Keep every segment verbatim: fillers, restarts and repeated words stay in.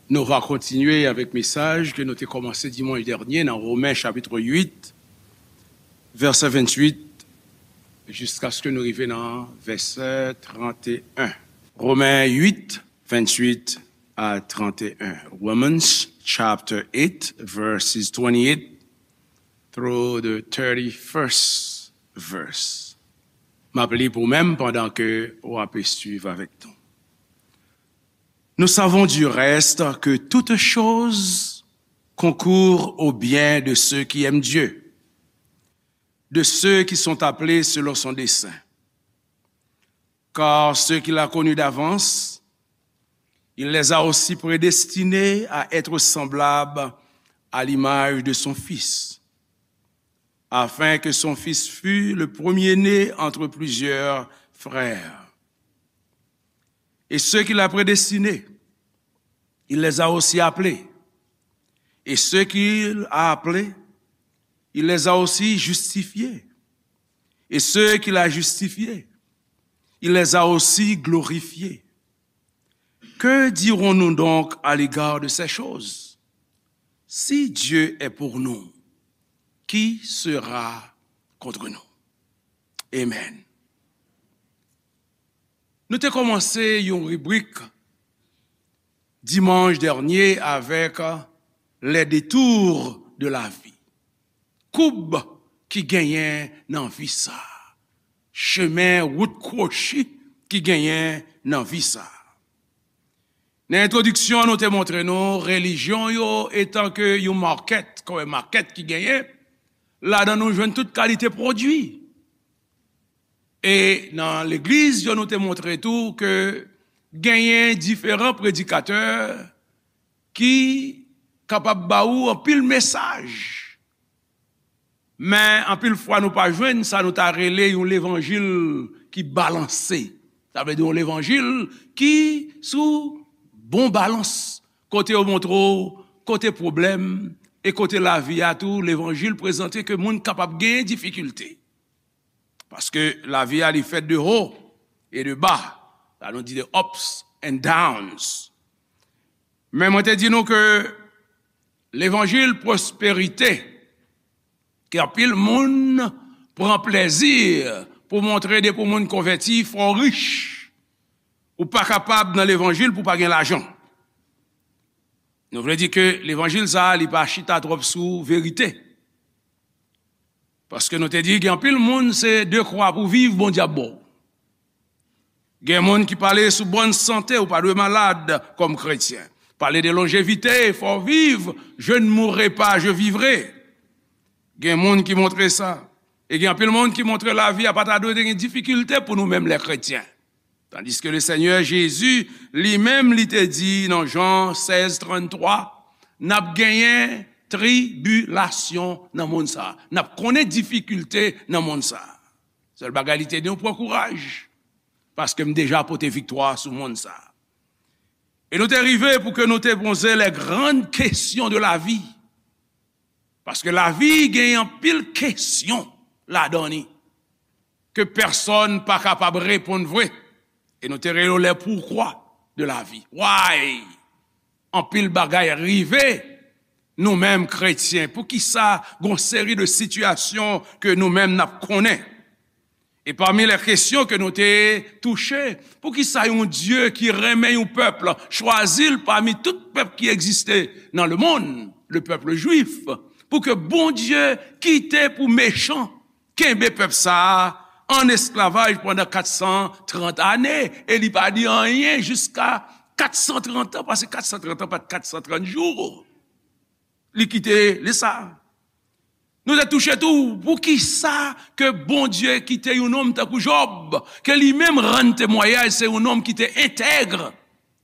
Nou va kontinye avèk mesaj ke nou te kòmanse dimanch dènye nan Women chapit uit, vèsè venntuit, jiskaske nou rive nan vèsè tranteyen. Women uit, venntuit a tranteyen. Romans chapter eight, verses twenty-eight through the thirty-first verse. M ap li pou mwen pandan ke w ap swiv avèk nou. Nous savons du reste que toutes choses concourent au bien de ceux qui aiment Dieu, de ceux qui sont appelés selon son dessein. Car ceux qu'il a connus d'avance, il les a aussi prédestinés à être semblables à l'image de son Fils, afin que son Fils fût le premier-né entre plusieurs frères. Et ceux qu'il a prédestinés, il les a aussi appelés. Et ceux qu'il a appelés, il les a aussi justifiés. Et ceux qu'il a justifiés, il les a aussi glorifiés. Que dirons-nous donc à l'égard de ces choses? Si Dieu est pour nous, qui sera contre nous? Amen. Nou te kòmanse yon ribrik dimanch dènye avèk les détours de la vie. Koub ki genyen nan vi sa. Chemen wout kwochi ki genyen nan vi sa. Nan entwodiksyon an, nou te montre nou relijyon yo etanke yon makèt, kòm makèt ki genyen, ladan nou jwenn tout kalite pwodui. E nan legliz yo, nou te montre tou ke genyen diferan predikatè ki kapab ba ou anpil mesaj. Men anpil fwa nou pa jwenn sa nou ta rele yon levanjil ki balanse. Sa vle di yon levanjil ki sou bon balans, kote yo montre w kote pwoblèm e kote lavi a tou, levanjil prezante ke moun kapab genyen difikilte. Paske lavi a li fèt de haut et de bas. Sa nou di de ups and downs. Men mwen te di nou ke levanjil pwosperite, ke anpil moun pran plezi pou montre depi yon moun konvèti, fò w rich. Ou pa kapab nan levanjil pou w pa gen lajan. Nou vle di ke levanjil sa a, li pa chita twòp sou verite. Paske nou te di, gen anpil moun, se de kwa pou viv, Bondye ap ba w. Gen moun ki pale sou bòn sante, ou pa dwe malad kòm kretyen. Pale de lonjevite, fò w viv, je ne mourrai pas, je vivrai. Gen moun ki montre sa. E gen anpil moun ki montre lavi a pa ta dwe gen difikilte pou nou menm lè kretyen. Tandiske le Senyè Jezi, li menm, li te di nan Jan sèz tranntwa, n ap genyen tribilasyon nan monn sa a. N ap konnen difikilte nan monn sa a. Sèl bagay li te di nou, pran kouraj, paske m deja pote viktwa sou monn sa a. E nou te rive pou ke nou te poze les grandes questions de la vie. Paske lavi gen anpil kesyon ladan li ke pèsonn pa kapab reponn vre. E nou te rele yo les pourquoi de la vie. Why? Anpil bagay rive nou menm kretyen. Poukisa gon seri de sitiyasyon ke nou menm n ap konnen? E pami lè kesyon ke nou te touche, poukisa yon Dye ki renmen yon pèp, chwazi l pami tout pèp ki egziste nan lemonn, le peuple juif, pou ke Bondye kite pou mechan kenbe pèp sa a an esklavaj pandan kat san trant ane, e li pa di anyen jiska kat san trant an, paske kat san trant an pa t kat san trant jou. Li kite li sa. Nou te touche tou, poukisa ke Bondye kite yon nonm tankou Jòb, ke li menm rann temwayaj se yon nonm ki te entèg,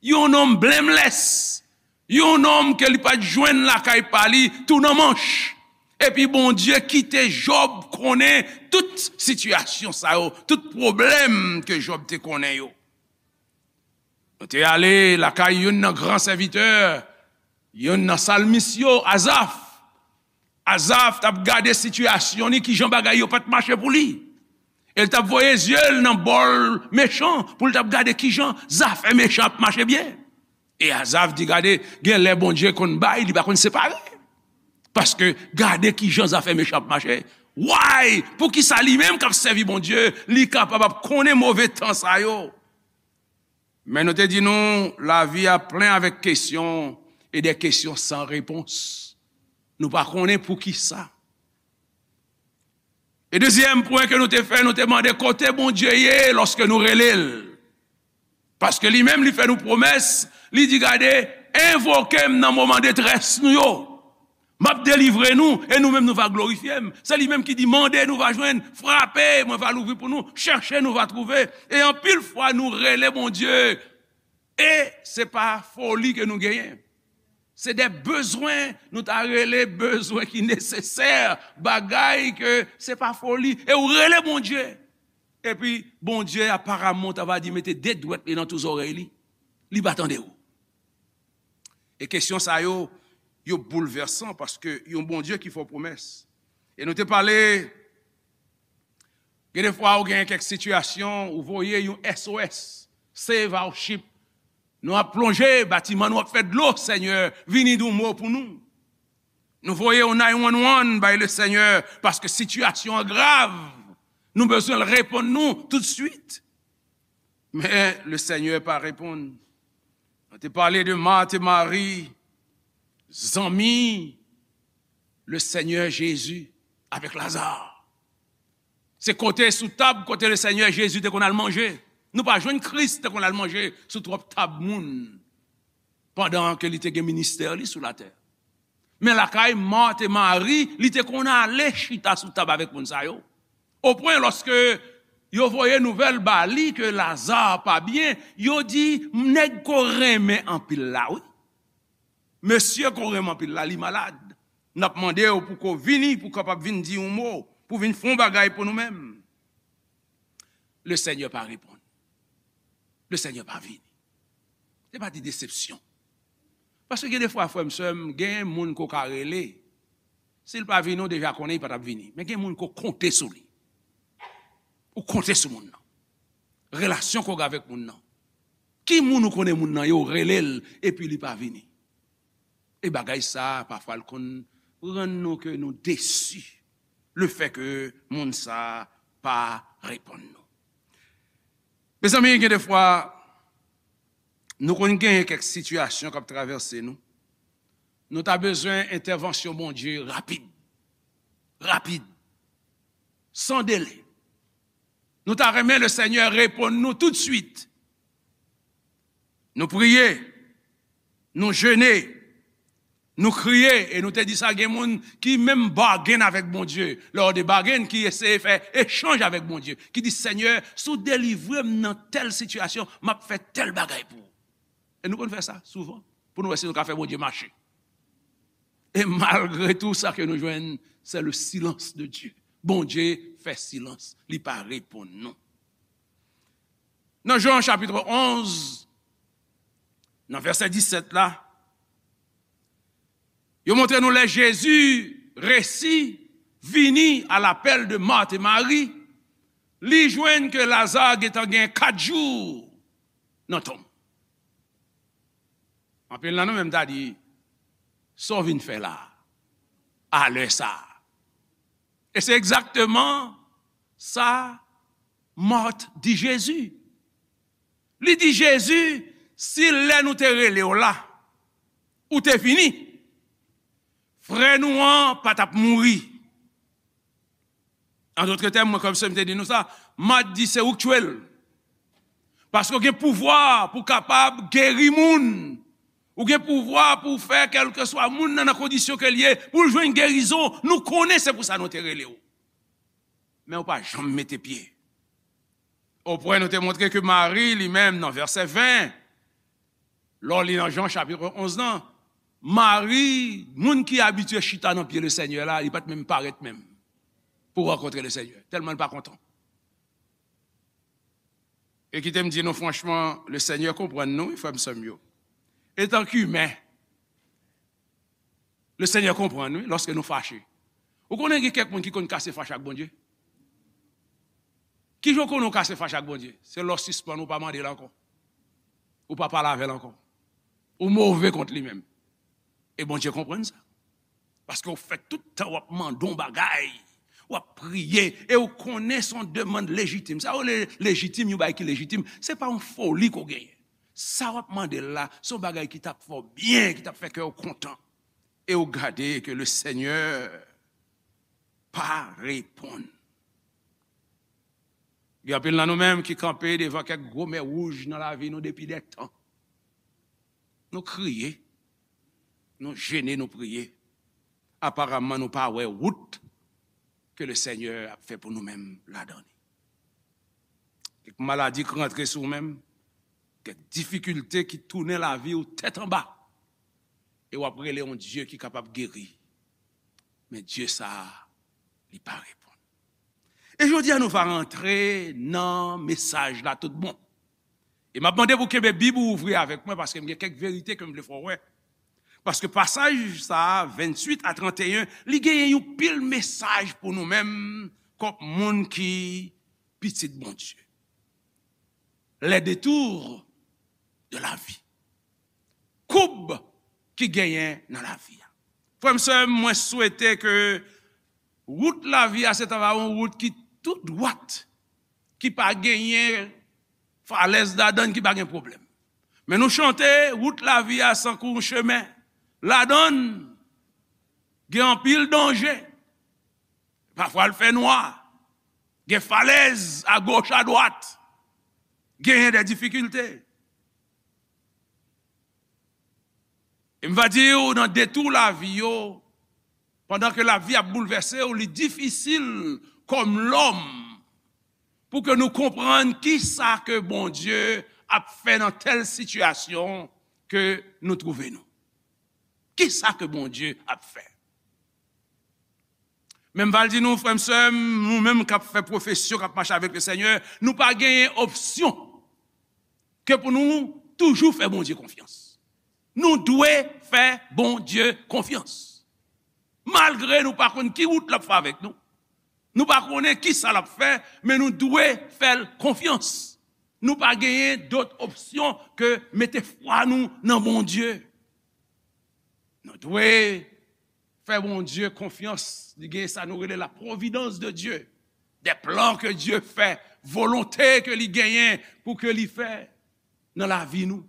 yon nonm blameless, yon nonm ke li pa t jwenn lakay pa li tou nan manch. Epi Bondye kite Jòb konnen tout sitiyasyon sa yo, tout pwoblèm ke Jòb te konnen yo. Nou te ale lakay youn nan gran sèvitè, youn nan salmis yo, Azaf. Azaf t ap gade sitiyasyon li, kijan bagay yo pa t mache pou li. E l t ap voye zye l nan bò mechan pou l t ap gade kijan zafè mechan ap mache byen. E Azav di, gade, gen lè Bondye konn bay, li pa konn separe. Paske gade kijan zafè mechan ap mache. Why? Poukisa li menm k ap sèvi Bondye, li kapab ap konnen move tan sa yo? Men nou te di nou, lavi a plen avèk kesyon e de kesyon san repons. Nou pa konnen poukisa. E dezyèm pwen ke nou te fè, nou te mande kote Bondye ye lòske nou rele l. Paske li menm, li fè nou pwomès, li di, gade, envoke m nan moman detrès nou yo. M ap delivre nou, e nou menm nou va glorifye m. Se li menm ki di, mande, nou va jwenn, frape, mwen va louvri pou nou, chèche, nou va twouve. E anpil fwa, nou rele Bondye, e se pa foli ke nou genyen. Se de bezwen, nou ta rele bezwen ki nesesè, bagay ke se pa foli. E ou rele Bondye. Epi, Bondye, aparamman, ta va di, mete de dwèt li nan tou zòrèy li. Li pa tande w. E kesyon sa yo, yo boulvèsan paske yon Bondye ki fè w pwomès. E nou te pale, gen de fwa ou gen kèk sitiyasyon, ou voye yon S O S, Save Our Ship. Nou ap plonje, batiman nou ap fè dlo, Senyè, vini di yon mo pou nou. Nou voye yon nine one one bay le Senyè, paske sitiyasyon an grav. Nou bezwen l reponn nou toutswit. Men le Senyè pa reponn. Nou te pale de Mat e Mari, zanmi le Senyè Jezi avèk Laza. Se kote sou tab kote le Senyè Jezi te konn al manje. Nou pa jwenn Kris te konn al manje sou twòp tab moun pandan ke li te gen ministè li sou latè. Men lakay Mat e Mari, li te konn ale chita sou tab avèk moun sa yo. Opwen lòske yo voye nouvèl ba li ke Laza pa byen, yo di, nèg ke w renmen anpil la, wi. Mesye ke w renmen anpil la, li malad. N ap mande w pou ke w vini, pou w kapab vin di yon mo, pou w vin fè yon bagay pou nou menm. Le Senyè pa reponn. Le Senyè pa vini. Se pa de desepsyon. Paske gen de fwa, frè m, sè m, gen moun ke w ka rele. Si l pa vini, w deja konnen li pa t ap vini. Men gen moun ke w konte sou li. Ou konte sou moun nan. Relasyon ke w gen avèk moun nan. Ki moun ou konnen moun nan ye, w rele l, epi li pa vini. E bagay sa, pafwa, l konn rann nou ke nou desi. Lefètke moun sa pa reponn nou. Mezanmi, gen de fwa, nou konn genyen kèk sitiyasyon k ap travèse nou. Nou ta bezwen entèvansyon Bondye rapid. Rapid. San dele. Nou ta renmen le Senyè reponn nou toutswit. Nou priye, nou jene, nou kriye, e nou te di sa, gen moun ki menm bagen avèk Bondye. Lè w de bagen ki eseye fè echanj avèk Bondye, ki di, Senyè, si w delivre m nan tèl sitiyasyon, m ap fè tèl bagay pou ou. E nou konn fè sa souvan, pou nou wè si nou ka fè Bondye mache. E malgre tou, sa ke nou jwenn, se le silence de Dieu. Bondye fè silans, li pa reponn nou. Nan Jan chapit onz, nan vèsè disèt la, yo montre nou lè Jezi resi vini a lapèl de Mat e Mari, li jwenn ke Laza gentan gen kat jou nan tonm. Anpil nan nou menm ta di, sa w vin fè la a, a lè sa a? E se egzakteman sa Mat di Jezi. Li di Jezi, si lè nou te rele w la, ou te vini, frè nou an pa t ap mouri. An dòt tèm, mwen, kòm se m te di nou sa, Mat di se ou k tchwe l. Paske w gen pouvwa pou w kapab geri moun. Ou gen pouvwa pou w fè kèlkeswa moun nan, nan kondisyon ke l ye, pou l jwenn gerizon. Nou konnen se pou sa nou te rele w. Men ou pa janm mete pye. Opwen nou te montre ke Mari, li menm, nan vèsè ven, lè w li nan Jan chapit onz lan, Mari, moun ki abitye chita nan pye le Senyè la, li pa t menm parèt menm pou rankontre le Senyè, tèlman l pa kontan. E kite m di nou franchman, le Senyè konprann nou, wi, frè m, sè m yo. Etanke imen, le Senyè konprann, wi, lòske nou fache. Ou konnen gen kèk moun ki konn kase fache ak Bondye? Kijan w konnen w kase fache ak Bondye? Se lè w sispann, ou pa mande l ankò. Ou pa pale avè l ankò. Ou move kont li menm. E Bondye konprann sa. Paske w fè tout tan w ap mande yon bagay, w ap priye, e w konnen se yon demann lejitim. Sa yo rele lejitim, yon bagay ki lejitim, se pa yon foli ke w genyen. Sa w ap mande l la, se yon bagay ki t ap fè w byen, ki t ap fè kè w kontan. E w gade ke le Senyè pa reponn. Gen anpil nan nou menm ki kanpe devan kèk gwo mè wouj nan lavi nou depi dè tan. Nou kriye, nou jene, nou priye. Aparamman, nou pa wè wout ke le Senyè ap fè pou nou menm ladan li. Kèk maladi k rantre sou ou menm, kèk difikilte ki tounen lavi w tèt anba, e w ap rele yon Dye ki kapab geri. Men Dye sa a, li pa reponn. E jodi a, nou va rantre nan mesaj la tout bon. E m ap mande pou kenbe Bib ou ouvri avèk mwen, paske m gen kèk verite ke m vle fè w wè. Paske pasaj sa a, venntuit a tranteyen, li genyen yon pil mesaj pou nou menm, kòm moun ki pitit Bondye. Les détours de la vie. Koub ki genyen nan lavi a. Frè m, sè m, mwen swete ke wout lavi a se ta va yon wout ki tou dwat, ki pa genyen falèz ladan, ki pa gen pwoblèm. Men nou chante, wout lavi a sankou yon chemen. Ladan l, gen anpil danje. Pafwa l fè nwa. Gen falèz agoch, adwat. Genyen de difikilte. E m va di w, nan detou lavi yo, pandan ke lavi ap boulvèse w, li difisil kòm lòm pou ke nou konprann kisa ke Bondye ap fè nan tèl sitiyasyon ke nou twouve nou. Kisa ke Bondye ap fè? Men m va l di nou, frè m, sè m, nou menm k ap fè pwofesyon, k ap mache avèk le Senyè, nou pa genyen opsyon ke pou nou toujou fè Bondye konfyans. Nou dwe fè Bondye konfyans. Malgre nou pa konn ki wout l ap fè avèk nou, nou pa konnen ki sa l ap fè, men nou dwe fè l konfyans. Nou pa genyen dòt opsyon ke mete fwa nou nan Bondye. Nou dwe fè Bondye konfyans. Li gen sa nou rele la providence de Dieu. Des plans que Dieu fait, volonte ke li genyen pou ke li fè nan lavi nou.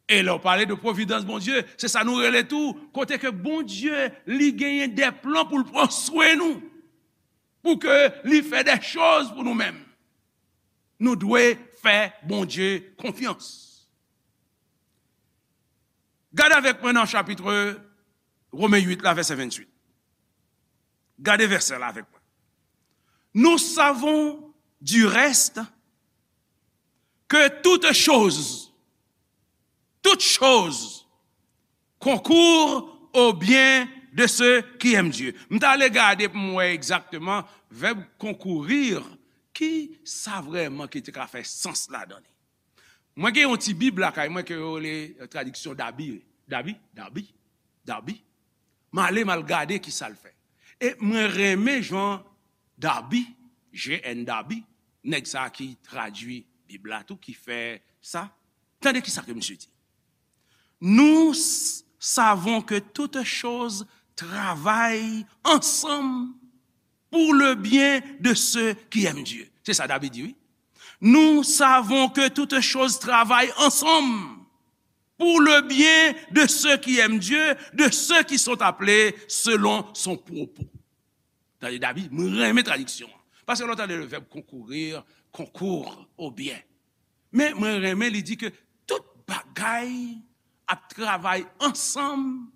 E lè w pale de providence Bondye, se sa nou rele tou, kote ke Bondye, li genyen de plan pou l pran swen nou, pou ke li fè de choz pou nou menm. Nou dwe fè Bondye konfyans. Gade avèk mwen nan chapit Women uit la, vèsè venntuit. Gade vèsè la avèk mwen. Nous savons du reste que toutes choses, toutes choses concourent au bien de ceux qui aiment Dieu. M t ale gade pou m wè egzakteman vèb concourir, ki sa vrèman ki te ka fè sans ladan li. Mwen gen yon ti bib lakay mwen ke yo rele, eh, tradiksyon Dabi. Dabi? Dabi? Dabi? M ale, m al gade ki sa l fè. E mwen renmen jan Dabi, J N Dabi, nèg sa ki tradui Bib la tou, ki fè sa. Tande ki sa ke misye di. Nous s- savons que toutes choses travaillent ensemble pour le bien de ceux qui aiment Dieu. Se sa David di, wi. Nous savons que toutes choses travaillent ensemble pour le bien de ceux qui aiment Dieu, de ceux qui sont appelés selon son propos. Tande, David, mwen renmen tradiksyon an. Paske lè w tande le vèb concourir, concourt au bien. Men mwen renmen li di ke tout bagay ap travay ansanm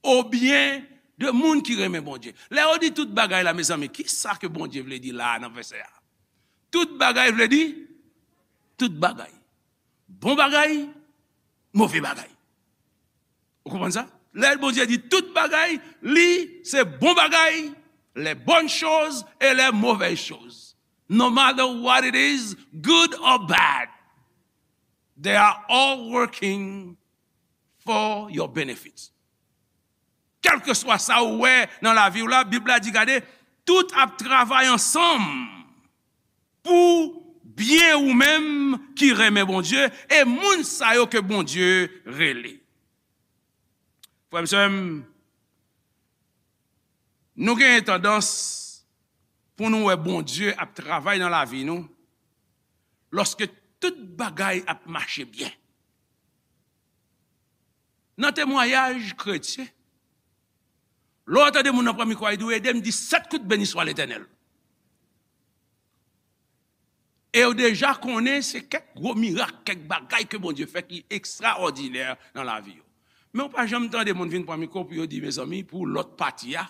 au bien de moun ki renmen Bondye. Lè yo di tout bagay la, mezanmi, ki sa ke Bondye vle di la nan vèsè a? Tout bagay vle di tout bagay. Bon bagay, move bagay. Ou konprann sa? Lè Bondye di tout bagay, li se bon bagay, les bonnes choses et les mauvaises choses. No matter what it is, good or bad, they are all working for your benefit. Kèlkeswa sa ou wè nan lavi w la, Bib la di, gade, tout ap travay ansanm pou Byen ou menm ki renmen Bondye e moun sa yo ke Bondye rele. Frè m, sè m, nou genyen tandans pou nou wè Bondye ap travay nan lavi nou lòske tout bagay ap mache byen. Nan temwayaj kretyen, lè w tande moun nan pran mikwo a, li di w, "Ede m di sèt kout beni swa Letènèl." E yo deja konnen se kèk gwo mirak, kèk bagay ke Bondye fè ki ekstraòdinè nan lavi yo. Men w pa janm tande moun vin pran mikwo pou yo di, mezanmi, pou lòt pati a,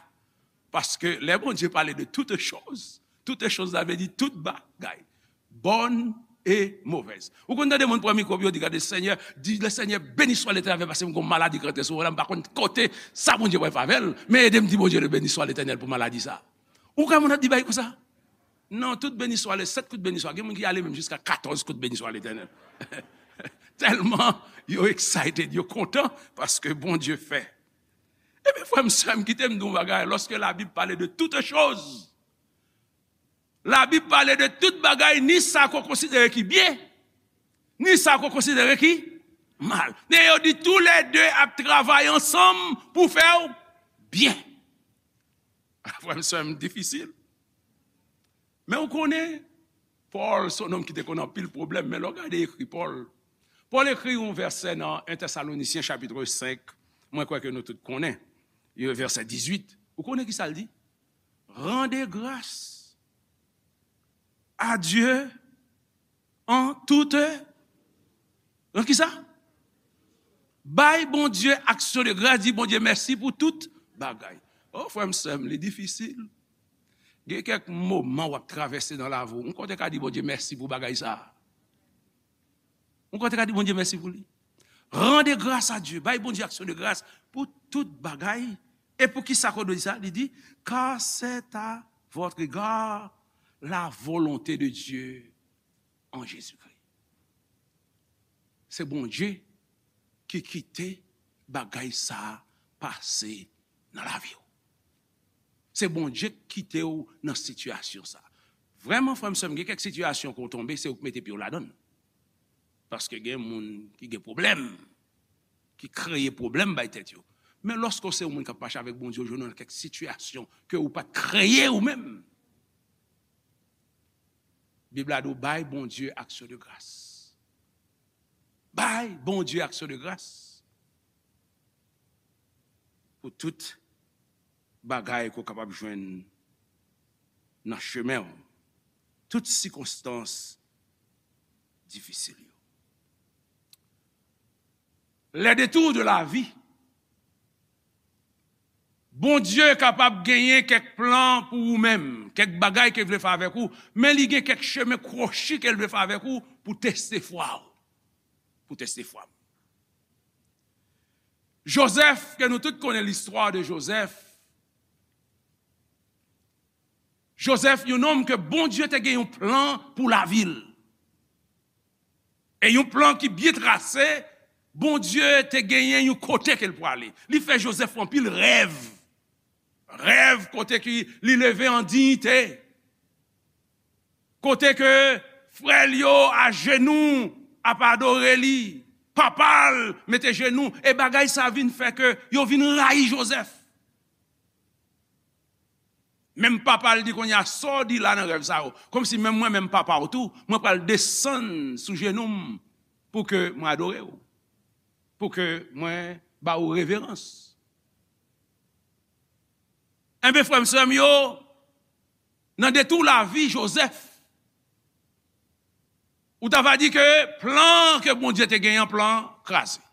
paske lè Bondye pale de toutes choses, toutes choses, sa vle di tout bagay, bonnes et mauvaises. Ou konn tande moun pran mikwo pou yo di, gade, Senyè, di, le Seigneur béni soit l'Éternel, paske m gon maladi k rantre sou mwen la, m pa konn kote sa Bondye pral fè avè l, men ede m di Bondye le béni soit l'Éternel pou maladi sa. Ou kwè moun ap di bagay konsa? Non, tout beni swa, le sèt kout beni swa. Gen moun ki ale menm jiska katòz kout beni swa Letènèl. Tèlman yo excited, yo kontan paske Bondye fè. Ebyen, frè m, sè m, kite m di w yon bagay. Lòske Labib pale de toutes choses, Labib pale de tout bagay, ni sa ke w konsidere ki byen, ni sa ke w konsidere ki mal. E yo di, toulède ap travay ansanm pou fè w byen. Frè m, sè m, difisil. Men w konnen, Pòl se yon nonm ki te konn anpil pwoblèm, men lè w gade ekri Pòl, Pòl ekri yon vèsè nan en Tesalonisyen chapit senk, mwen kwè ke nou tout konnen, e vèsè dizuit. Ou konnen ki sa l di? Rendez grâce à Dieu en toute, en ki sa? Bay Bondye aksyon de gras, di Bondye mèsi pou tout bagay. O, frè m, sè m, li difisil. Gen kèk moman w ap travèse nan lavi w, ou konn te ka di Bondye mèsi pou bagay sa a. Ou konn te ka di Bondye mèsi pou li. Rendez grâce à Dieu, bay Bondye aksyon de gras pou tout bagay. E pou ki sa ke w dwe di sa? Li di, car c'est à votre égard la volonté de Dieu en Jésus-Christ. Se Bondye ki kite bagay sa a pase nan lavi w. Se Bondye k kite w nan sitiyasyon sa a. Vrèman, frè m, sè m, gen kèk sitiyasyon ke w tonbe, se ou k mete pye w ladan l. Paske gen moun ki gen pwoblèm, ki kreye pwoblèm bay tèt yo. Men lòske w se yon moun k ap mache avèk Bondye, w jwenn nan kèk sitiyasyon ke ou pa t kreye ou menm. Bib la di w bay Bondye aksyon de gras. Bay Bondye aksyon de gras pou tout bagay ke w kapab jwenn nan chemen w, tout sikonstans difisil yo. Les détours de la vie. Bondye kapab genyen kèk plan pou ou menm, kèk bagay ke l vle fè avèk ou, men li gen kèk chemen kwochi ke l vle fè avèk ou pou teste fwa w. Pou teste fwa m. Jozèf, ke nou tout konnen listwa de Jozèf. Jozèf, yon nonm ke Bondye te gen yon plan pou lavi l. E yon plan ki byen trase, Bondye te genyen yon kote ke l pwale. Li fè Jozèf anpil rèv. Rèv kote ki li leve an diyite. Kote ke frè l yo ajenou ap adore li. Papa l mete jenou. E bagay sa vin fè ke yo vin rayi Jozèf. Menm papa l di, kounye a, sa w di la nan rèv sa yo? Kòmsi menm mwen, menm papa w tou, mwen pral desann sou jenou m pou ke mwen adore w, pou ke mwen ba ou reverans. Enben, frè m, sè m yo, nan detou lavi Jozèf, ou ta va di ke plan ke Bondye te genyen an, plan kraze.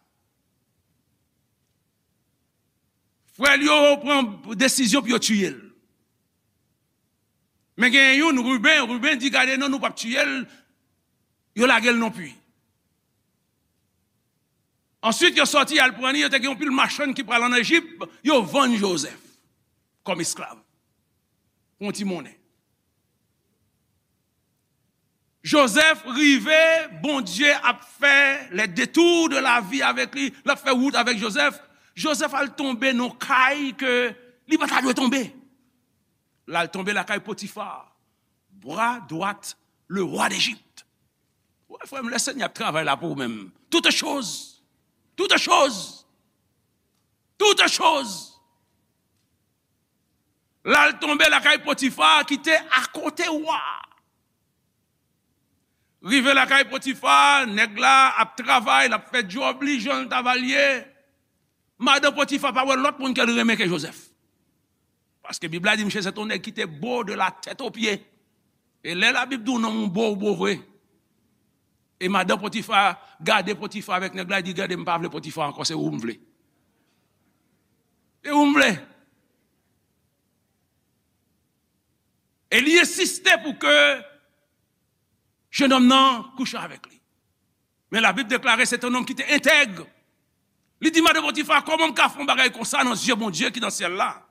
Frè l yo pran desizyon pou yo tiye l. Men gen youn, Riben, Riben di, gade non, nou p ap tiye l, yo lage l nan pwi. Answit, yo sòti al pran li, yo te gen yon pil machann ki pral ann Ejip, yo vann Jozèf kòm esklav pou yon ti monnen. Jozèf rive, Bondye ap fè les détours de la vie avèk li, l ap fè wout avèk Jozèf. Jozèf al tonbe nan kay ke li pa ta dwe tonbe. L al tonbe lakay Potifa, bra dwat le roi d'Égypte. Ou wè, frè m, lè Senyè ap travay la pou ou menm, toutes choses, toutes choses, toutes choses. L al tonbe lakay Potifa ki te akote wa. Rive lakay Potifa, nèg la ap travay, l ap fè djòb li jan l ta va l ye. Madan Potifa pa wè lòt moun ke l renmen ke Jozèf. Paske Bib la di misye se te yon nèg ki te bo de la tèt o pye. E lè Labib di w nonm ou bo, ou bo vre. E madan Potifa gade Potifa avèk nèg la, li di, "Gade, m pa vle Potifa ankò, se ou m vle. Se ou m vle." E li ensiste pou ke jennonm nan kouche avèk li. Men Labib deklare se te yon nonm ki te entèg. Li di madan Potifa, "Kòman m ka fè yon bagay konsa nan zye Bondye ki nan syèl la?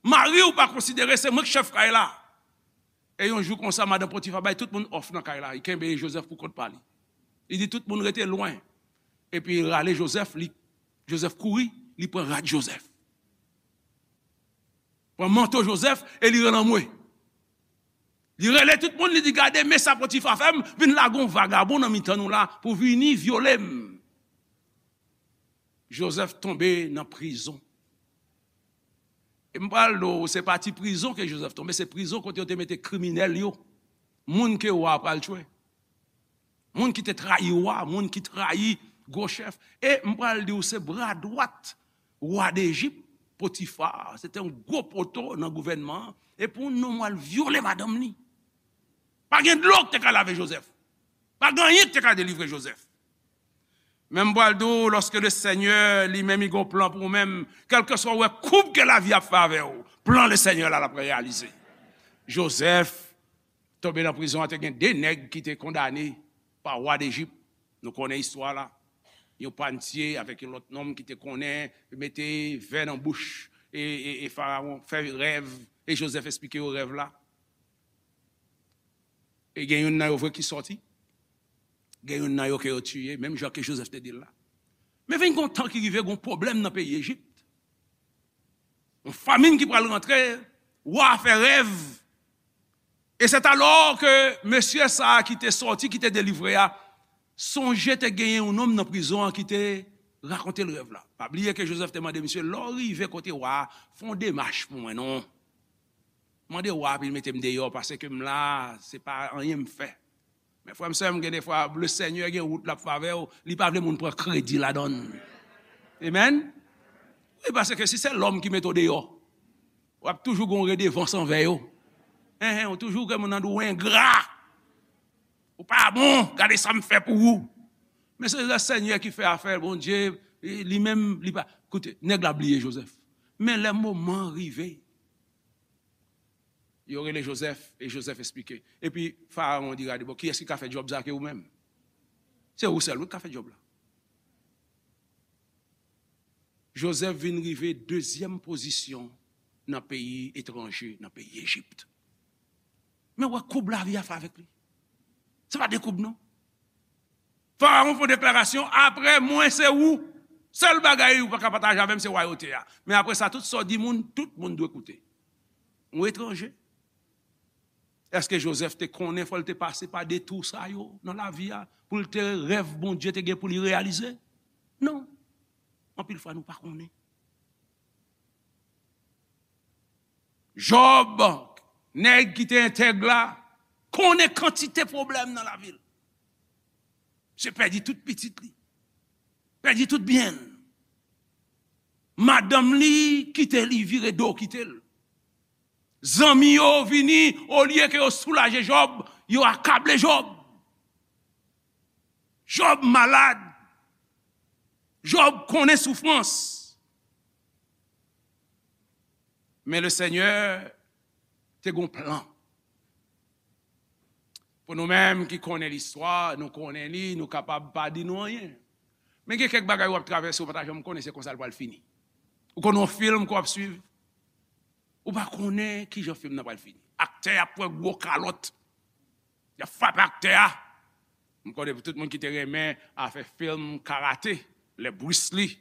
Mari w pa konsidere se mwen k chèf kay la." E yon jou konsa, madan Potifa bay tout moun òf nan kay la. Li kenbe Jozèf pou kont pa li. Li di tout moun rete lwen. Epi li rale Jozèf, li, Jozèf kouri, li pran rad Jozèf. Pran manto Jozèf e li rele anmwe. Li rele tout moun, li di, "Gade, men sa Potifa fè m, vin lage yon vagabon nan mitan nou la pou vini vyole m." Jozèf tonbe nan prizon. E m pral di w, se pa ti prizon ke Jozèf tonbe, se prizon kote yo te mete kriminèl yo, moun ke wa a pral tchwe. Moun ki te trayi wa, moun ki trayi gwo chèf. E m pral di w, se bra dwat wa Dejip, Potifa, se te yon gwo poto nan gouvènman an. E pou yon nonm al vyole madanm li. Pa gen dlo ki te ka lave Jozèf. Pa gen anyen ki te ka delivre Jozèf. Men m pral di w, lòske Lesenyè li menm li gen yon plan pou ou menm, kèlkeswa ou wè koub ke lavi ap fè avè w, plan Lesenyè la l ap reyalize. Jozèf tonbe nan prizon an, te gen de nèg ki te kondane pa wa Dejip. Nou konnen istwa la. Yon pannye avèk yon lòt nonm ki te konnen mete vè nan bouch e, e, e Farawon, fè rèv, e Jozèf esplike yo rèv la. E gen youn nan yo vre ki sòti, gen youn nan yo ke yo tiye, menm jan ke Jozèf te di l la. Men vin gen yon tan ki rive, gen yon pwoblèm nan peyi Ejip. Yon famin ki pral rantre, wa a fè rèv. Et c'est alors que mesye sa a ki te sòti, ki te delivre a, sonje te genyen yon nonm nan prizon an ki te rakonte l rèv la. Pa bliye ke Jozèf te mande misye, "Lè w rive kote wa a, fè yon demach pou mwen non. Mande wa a pou l mete m deyò, paske m la, se pa anyen m fè." Men frè m, sè m, gen defwa, Lesenyè gen wout l ap fè avè w, li pa vle moun pran kredi ladan l. Amen? Wi, paske si se lòm ki mete w deyò, w ap toujou gen yon redevans anvè yo. Enhen, ou toujou gen moun nan di w engra. Ou pa bon, gade sa m fè pou ou. Men se Lesenyè ki fè afè l, Bondye, li menm, li pa. Koute, nèg la bliye Jozèf. Men lè moman an rive, yo rele Jozèf, e Jozèf esplike. Epi Farawon di, "Gade, bon, kiyès ki ka fè djòb sa ke ou menm? Se ou sèl, wi, ki ka fè djòb la." Jozèf vin rive dezyèm pozisyon nan peyi etranje, nan peyi Ejip. Men wè koub lavi a fè avèk li. Se pa de koub, non. Farawon fè yon deklarasyon, "Apre mwen, se ou. Sèl bagay ou pa ka pataje avè m, se wayote a. Men apre sa, tout sa w di moun, tout moun dwe koute." Yon etranje. Èske Jozèf te konnen fò l te pase pa detou sa yo nan lavi a pou l te rèv Bondye te gen pou li reyalize? Non. Anpil fwa nou pa konnen. Jòb, nèg ki te entèg la, konnen kantite pwoblèm nan lavi l. Misye pèdi tout pitit li. Pèdi tout byen l. Madanm li kite li, vire do kite l. Zanmi yo vini, olye ke yo soulaje Jòb, yo akable Jòb. Jòb malad. Jòb konnen soufrans. Men Lesenyè te gen yon plan. Pou nou menm ki konnen listwa, nou konnen li, nou kapab pa di nou anyen. Men gen kèk bagay w ap travèse, ou pa ta janm konnen se konsa l pral fini. Ou konnen yon fim ke w ap swiv, ou pa konnen kijan fim nan pral fini. Aktè ap pran gwo kalòt. Y ap frape aktè a. M konnen pou tout moun ki te renmen afè fim karate, lè Bruce Lee,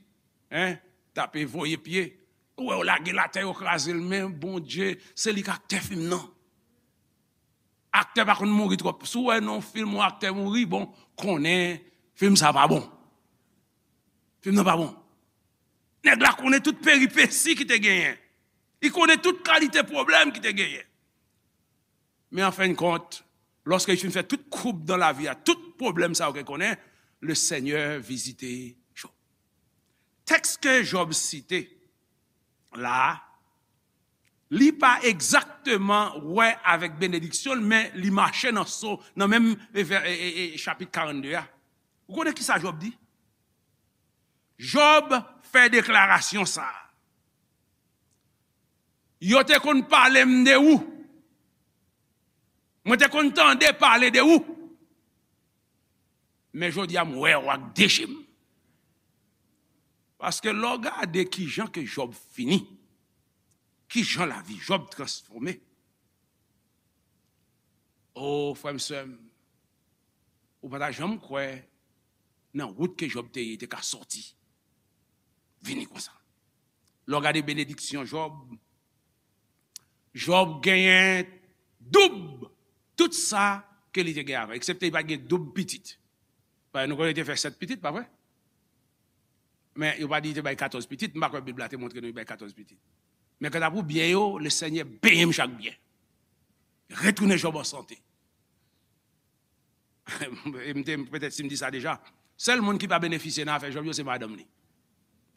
hein, tape voye pye. Ou wè yo lage l atè, yo kraze l, men Bondye, se li k aktè fim nan. Aktè pa konn mouri twòp. Si w wè nan yon fim yon aktè mouri, bon, konnen fim sa pa bon. Fim nan pa bon. Nèg la konnen tout peripesi ki te genyen. Li konnen tout kalite pwoblèm ki te genyen. Men an fen de kont, lòske li fin fè tout koub nan lavi a, tout pwoblèm sa yo ke konnen, le Senyè vizite Jòb. Tèks ke Jòb site la, li pa egzakteman wè avèk benediksyon l, men li mache nan so, nan menm e, vè- e, e, e, chapit karannde a. Ou konnen ki sa Jòb di? Jòb fè deklarasyon sa a. Yo te konn pale m de ou. Mwen te konn tande pale de ou. Men jodi a m wè w ak de je m. Paske lè w gade kijan ke Jòb fini, kijan lavi Jòb transfòme. O, frè m, sè m, ou pa ta janm kwè nan wout ke Jòb te ye, te ka sòti. Vini konsa. Lè w gade benediksyon Jòb, Jòb genyen doub tout sa ke li te gen avan, eksepte li pa t gen doub pitit. Paske nou konnen li te fè sèt pitit, pa vre? Men yo pa di li te bay katòz pitit, m pa kwè Bib la te montre nou li bay katòz pitit. Men kanta pou byen yo, le Senyè benyen m chak byen. Retounen Jòb an sante. E m te, petèt si m di sa deja, sèl moun ki pa benefisye nan afè Jòb yo, se madanm li.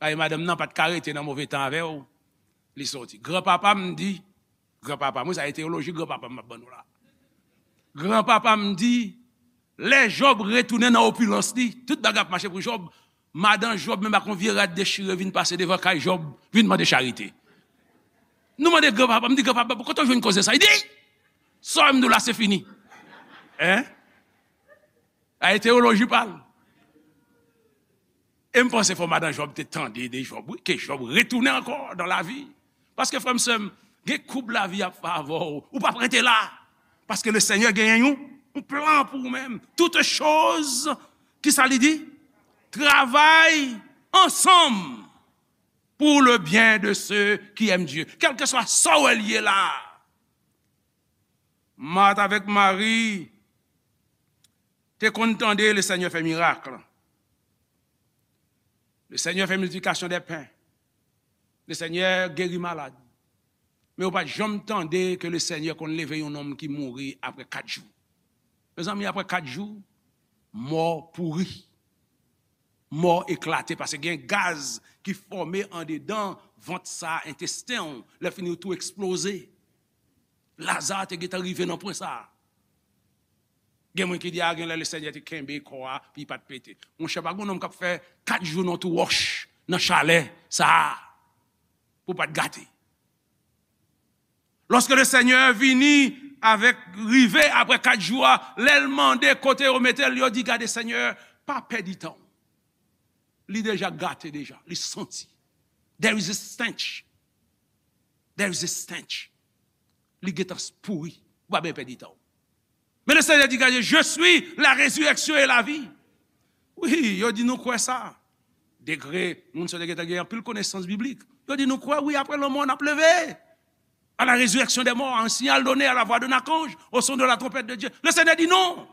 Paske madanm nan pa t ka rete nan move tan avè w, li soti. Granpapa m di, granpapa m, wi, sa e teyoloji granpapa m ap ban nou la. Granpapa m di, lè Jòb retounen nan opilans li, tout bagay ap mache pou Jòb, madan Jòb menm ak yon vye rad dechire vin pase devan kay Jòb, vin mande charite. Nou mande granpapa, m di, "Granpapa, kote w jwenn koze sa?" Li di, "Sa w m di w la, se fini." Hein? A e teyoloji pa l. E m panse fò madan Jòb te tande de Jòb, wi, ke Jòb retounen ankò dan lavi. Paske, frè m, sè m, gen koub lavi ap fè avè w, ou p ap rete la. Paske le Senyè genyen yon, yon plan pou ou menm. Toutes choses, ki sa li di? Travay ansanm pour le bien de ceux qui aiment Dieu. Kèlkeswa sa w wè l ye la. Mat avèk Mari te konn tande le Senyè fè mirak. Le Senyè fè miltiplikasyon dè pen. Le Senyè geri malad. Men yo pa t janm tande ke le Senyè konn leve yon nonm ki mouri apre kat jou. Mezanmi, apre kat jou, mò pouri. Mò eklate, paske gen gaz ki fòme andedan vant sa, entesten w, lè fini yo tou eksploze. Laza te gentan rive nan pwen sa a. Gen moun ki di, "A, gen lè le Senyè te kenbe kò a, pi pa t pete." Monchè, pa gen nonm k ap fè kat jou nan twou wòch, nan chalè sa a, pou pa t gate. Lòske le Senyè vini avèk, rive apre kat jou a, lè l mande kote yo mete l, yo di, "Gade, Senyè, pa pèdi tan w." Li deja gate deja, li santi. There is a stench. There is a stench. Li gentan pouri. Ou pa bezwen pèdi tan w. Men le Senyè di, "Gade, je suis la résurrection et la vie." Wi, yo di nou kwè sa. Degre, moun sa yo te gentan gen anpil konesans biblik. Yo di nou kwè, wi, apre lanmò, n ap leve. À la résurrection des morts, un signal donné à la voix d'un archange, au son de la trompette de Dieu. Le Senyè di, "Non.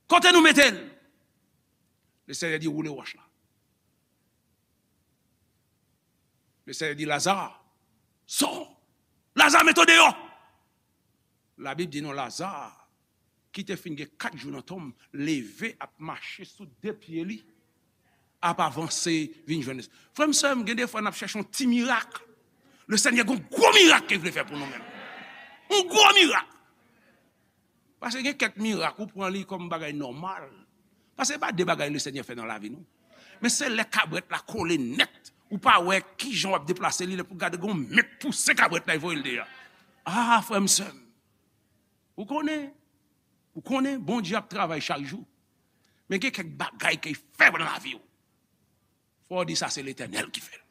Kote nou mete l?" Le Senyè di, "Woule wòch la." Le Senyè di, "Laza, sò! Laza, mete w deyò!" Labib di nou, Laza, ki te fin gen kat jou nan tonm, leve ap mache sou de pye li, ap avanse vin jwenn. Frè m, sè m, gen de fwa n ap chèche yon ti mirak. Le Senyè gen yon gwo mirak ke l vle fè pou nou menm. Yon gwo mirak. Paske gen kèk mirak, ou pran li kòm bagay nòmal. Paske se pa de bagay le Senyè fè nan lavi nou. Men se lè kabrèt la kole nèt, ou pa wè kijan w ap deplase li, lè pou gade gen yon men k pouse kabrèt la, e voye l deyò. A, frè m, sè m, ou konnen, ou konnen Bondye ap travay chak jou. Men gen kèk bagay ke l fè nan lavi w. Fò w di sa se Letènèl ki fè l.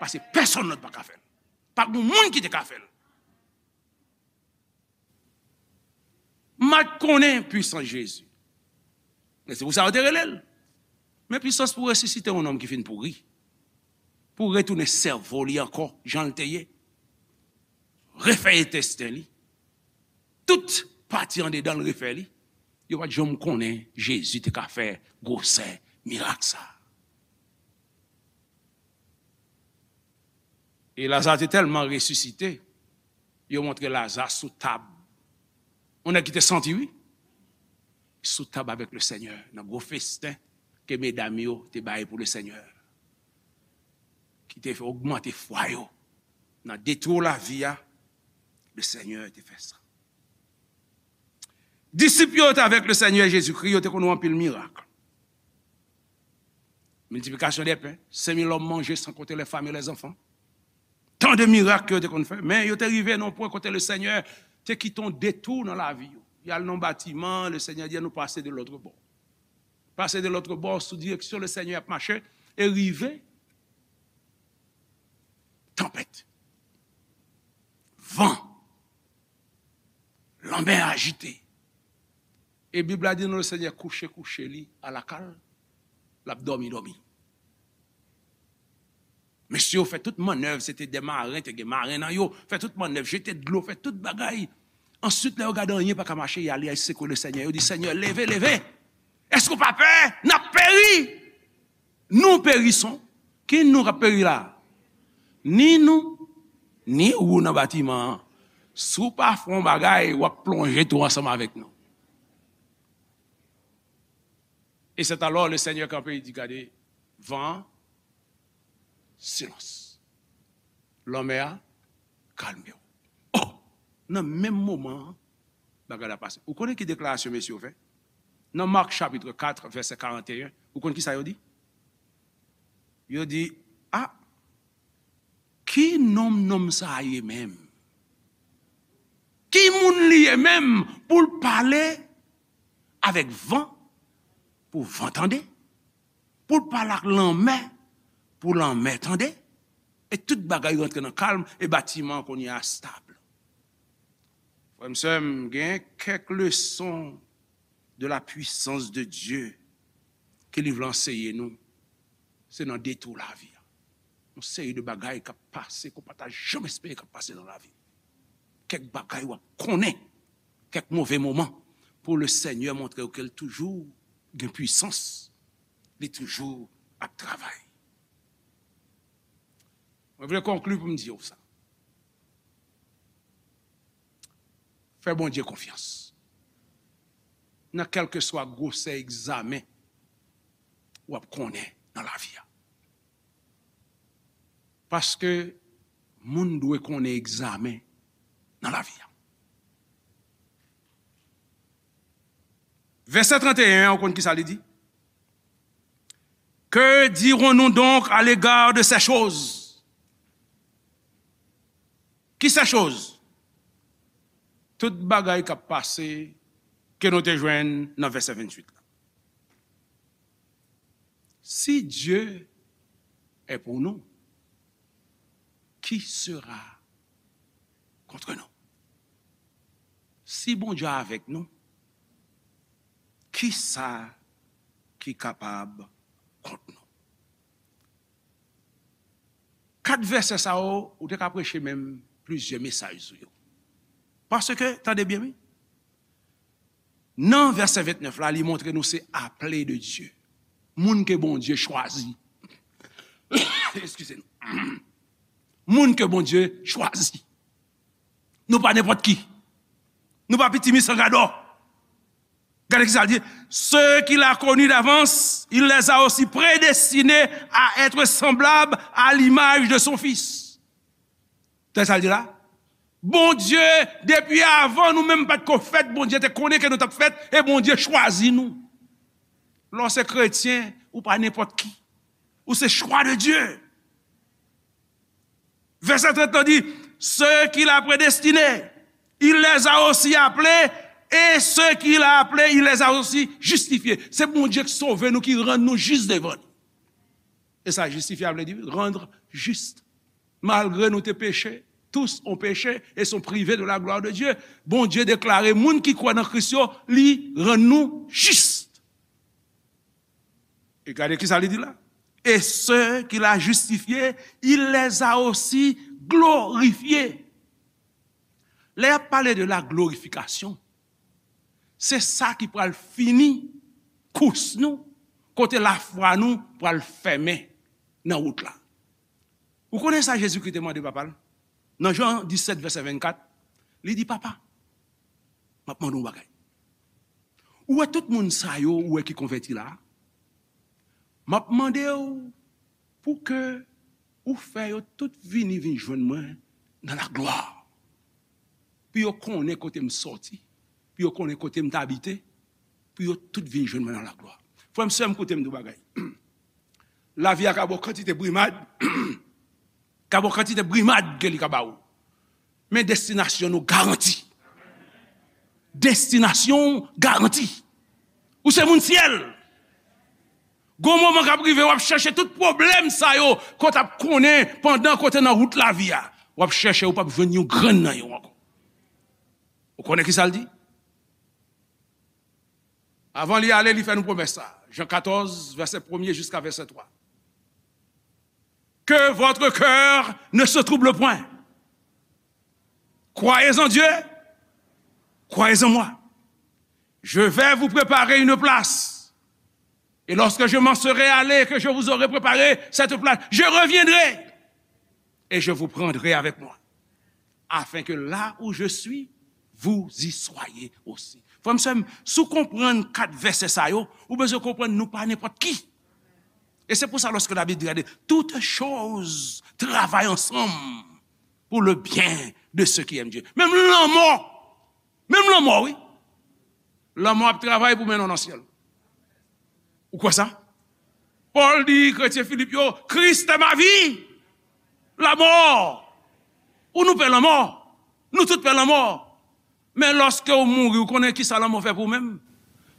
Paske pèsonn lòt pa ka fè l. Pa gen moun ki te ka fè l. Mat konnen pwisans Jezi. Men se pou sa yo te rele l. Men pwisans pou resisite yon nonm ki fin pouri. Pou retounen sèvo li ankò, jan l te ye. Refè entesten li. tout pati andedan l refè li, yo pa t janm konnen Jezi te ka fè gwosè mirak sa a. E Laza te tèlman resisite, yo montre Laza sou tab. Yon nèg ki te santi, wi. Sou tab avèk le Senyè, nan gwo festen ke medam yo te bay pou le Senyè, ki te fè ogmante fwa yo nan detou lavi a, le Senyè te fè sa. Disip yo te avèk le Senyè Jezikri, yo te konn wè anpil mirak. Miltiplikasyon de pen, senk mil òm manje, san konte lè fanm e lè zanfan. Tan de mirak ke yo te konn fè, men yo te rive nan yon pwen kote le Senyè te kite yon detou nan lavi yo. Y al nan batiman, le Senyè di, nou pase de lòt bò. Pase de lòt bò, sou direksyon le Senyè ap mache, e rive tanpèt, van, lanmè ajite. E Bib la di nou le Senyè kouche kouche li alakal, l ap dòmi dòmi. Mesye yo fè tout mannèv, se te de maren, te gen maren nan yo, fè tout mannèv, jete dlo, fè tout bagay. Answit, lè yo gade anyen pa ka mache, y ale, y al sekwe le Senyè, yo di, Senyè, leve, leve! Èske w pa pè? N ap peri! Nou perison. Ki nou k ap peri la? Ni nou, ni ou nan batiman an. Si w pa fè yon bagay, w ap plonje tou ansanm avèk nou. Et c'est alors le Seigneur kanpe, li di, gade, van an, silans. Lanmè a, kalme w. Oh! Nan menm moman an, bagay la pase. Ou konnen ki deklarasyon mesye yo fè? Nan Mak chapit kat, vèsè karanteyen, ou konn ki sa yo di? Yo di, a, ki nonm nonm sa a ye menm? Ki moun li ye menm pou l pale avèk van, pou van tande? Pou l pale ak lanmè, pou lanmè tande? E tout bagay rantre nan kalm, e batiman an kounye a stab. Frè m, sè m, gen kèk leson de la puissance de Dieu ke li vle anseye nou, se nan detou lavi a. Yon seri de bagay k ap pase ke w pa ta janm espere k ap pase nan lavi. Kèk bagay w ap konnen, kèk move moman, pou le Senyè montre w ke l toujou gen pwisans, li toujou ap travay. Mwen vle konkli pou m di w sa. Fè Bondye konfyans nan kèlkeswa gwosè egzamen w ap konnen nan lavi a. Paske moun dwe konnen egzamen nan lavi a. Vèsè trannteyen an, ou konn ki sa li di? Que dirons-nous donc à l'égard de ces choses? Ki ces choses? Tout bagay k ap pase ke nou te jwenn nan vèsè venntuit la. Si Dieu est pour nous, qui sera contre nous? Si Bondye avèk nou, kisa ki kapab kont nou? Kat vèsè sa yo, ou te ka preche menm plizyè mesaj sou yo. Paske, tande byen, wi. Nan vèsè vennèf la, li montre nou se aple de Dye. Moun ke Bondye chwazi. Eskize nou. Moun ke Bondye chwazi. Nou pa nenpòt ki. Nou pa pitimi san gadò. Gade ki sa l di. Ceux qu'il a connus d'avance, il les a aussi prédestinés à être semblables à l'image de son Fils. Tande sa l di la? Bondye, depi avan nou menm pa t ko fèt, Bondye te konnen ke nou t ap fèt, e Bondye chwazi nou. Lè w se kretyen, ou pa nenpòt ki. Ou se chwa de Dye. Vèsè trant lan di, ceux qu'il a prédestinés, il les a aussi appelés, et ceux qu'il a appelés, il les a aussi justifiés. Se Bondye ki sove nou, ki rann nou jis devan li. E sa, jistifye a vle di rendre juste. Malgre nou te peche, tous ont péché et sont privés de la gloire de Dieu. Bondye deklare moun ki kwè nan Kris yo, li rann nou jis. E gade ki sa li di la. Et ceux qu'il a justifiés, il les a aussi glorifiés. Lè y ap pale de la glorifikasyon, se sa ki pral fini kous nou, kote lafwa nou pral fèmen nan wout la. Ou konnen sa Jezikri te mande Papa l? Nan Jan disèt, vèsè vennkat, li di, Papa, m ap mande w yon bagay. Ou wè tout moun sa yo, ou wè ki konvèti la a? M ap mande w pou ke ou fè yo tout vini, vin jwenn mwen nan laglwa. Pou yo konnen kote m sòti, pou yo konnen kote m t abite, pou yo tout vin jwenn mwen nan laglwa. Frè m, sè m, koute m di w bagay. Lavi a ka ba w kantite brimad, ka ba w kantite brimad ke li ka ba w. Men destinasyon nou garanti. Destinasyon w garanti. Ou se moun syèl. Gon moman k ap rive, w ap chèche tout pwoblèm sa yo, ke w t ap konnen pandan ke w te nan wout lavi a. W ap chèche, ou p ap jwenn yon grenn nan yo ankò. Ou konnen ki sa l di? Avan li ale, li fè nou pwomès sa. Jan katòz, vèsè premye jiska vèsè twa. Que votre cœur ne se trouble point. Croyez en Dieu, croyez en moi. Je vais vous préparer une place. Et lorsque je m'en serai allé, que je vous aurai préparé cette place, je reviendrai et je vous prendrai avec moi, afin que là où je suis, vous y soyez aussi. Frè m, sè m, si w konprann kat vèsè sa yo, ou bezwen konprann nou pa nenpòt ki. E se pou sa, lòske Labib di, gade, toutes choses travaillent ensemble pour le bien de ceux qui aiment Dieu. Menm lanmò, menm lanmò, wi. Lanmò ap travay pou mennen w nan syèl. Ou kwè sa? Pòl di kretyen Filip yo, Christ est ma vie, la mort. Ou nou pè lanmò. Nou tout pè lanmò. Men lòske w mouri, ou konnen ki sa lanmò fè pou ou menm?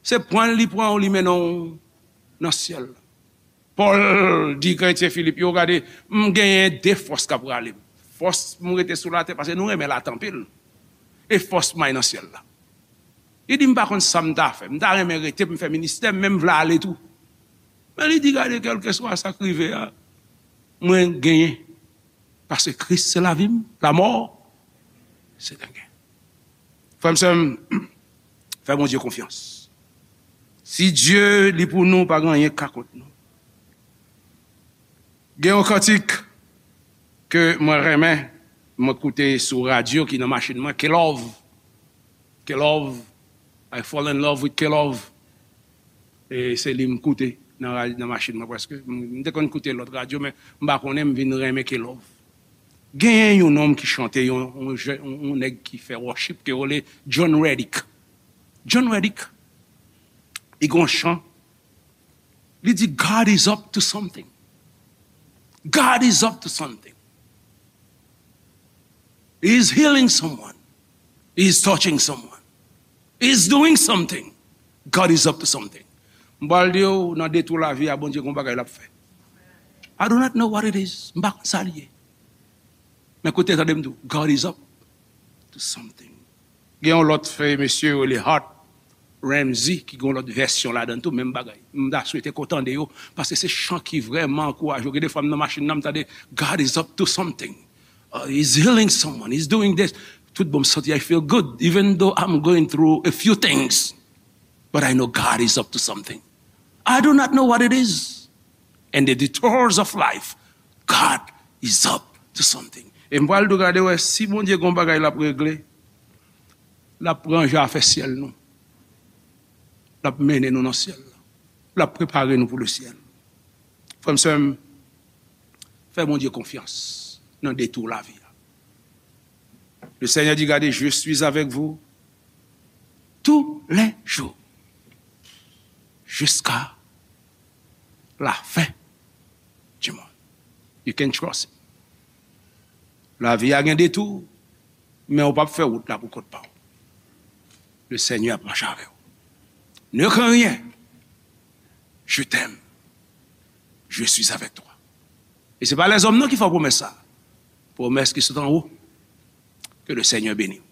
Se pran l, li pran w, li mennen w nan syèl la. Pòl di kretyen Filip yo, gade, m genyen de fòs k ap rale m. Fòs pou m rete sou latè, paske nou renmen latè anpil. E fòs pou m al nan syèl la. Li di, m pa konn sa m ta fè. M ta renmen rete pou m fè ministè m, men m vle ale tou. Men li di, gade, kèlkeswa sa k rive a, mwen genyen. Paske Kris se lavi m, lamò se dènye. Frè m, sè m, fè Bondye konfyans. Si Dye li pou nou, pa gen anyen k ka kont nou. Gen yon kantik ke mwen renmen, mwen koute sou radyo ki nan machin mwen, K-Love. K-Love, I fall in love with K-Love. E se li m koute nan ra-, nan machin mwen prèske. M, m te konn koute lòt radyo, men m pa konnen, m vin renmen K-Love. Genyen yon nonm ki chante, yon, yon jè-, yon, yon nèg ki fè worship, ke yo rele John Reddick. John Reddick, li gen yon chan, li di, God is up to something. God is up to something. He is healing someone. He is touching someone. He is doing something. God is up to something. M pral di w, nan detou lavi a, Bondye gon bagay l ap fè. I do not know what it is. M pa konn sa l ye. Men koute, tande m di w, God is up to something. Gen yon lòt frè, mesye, yo rele Hart Ramsey, ki gen yon lòt vèsyon ladan tou, menm bagay. M ta swete ke w tande yo, paske se chan ki vrèman ankouraje w. Gen de fwa m nan machin nan, m tande, God is up to something. Uh, he's healing someone, he's doing this. Tout bon, m santi, I feel good, even though I'm going through a few things. But I know God is up to something. I do not know what it is. And the detours of life, God is up to something. E m pral tou gade wè si Bondye gon bagay l ap regle, l ap ranje afè syèl nou. L ap mennen nou nan syèl la. L ap prepare nou pou le syèl. Frè m, sè m, fè Bondye konfyans nan detou lavi a. Le Seigneur dit, gade, je suis avec vous tous les jours jusqu'à la fin du monde. You can trust him. Lavi a gen detou, men ou p ap fè wout la pou kont pa w. Le Seigneur ap mache avè w. Ne crains rien. Je t'aime. Je suis avec toi. E se pa lèzòm non ki fè w pwomès sa. Pwomès ki sot anwo. Ke le Seigneur beni w.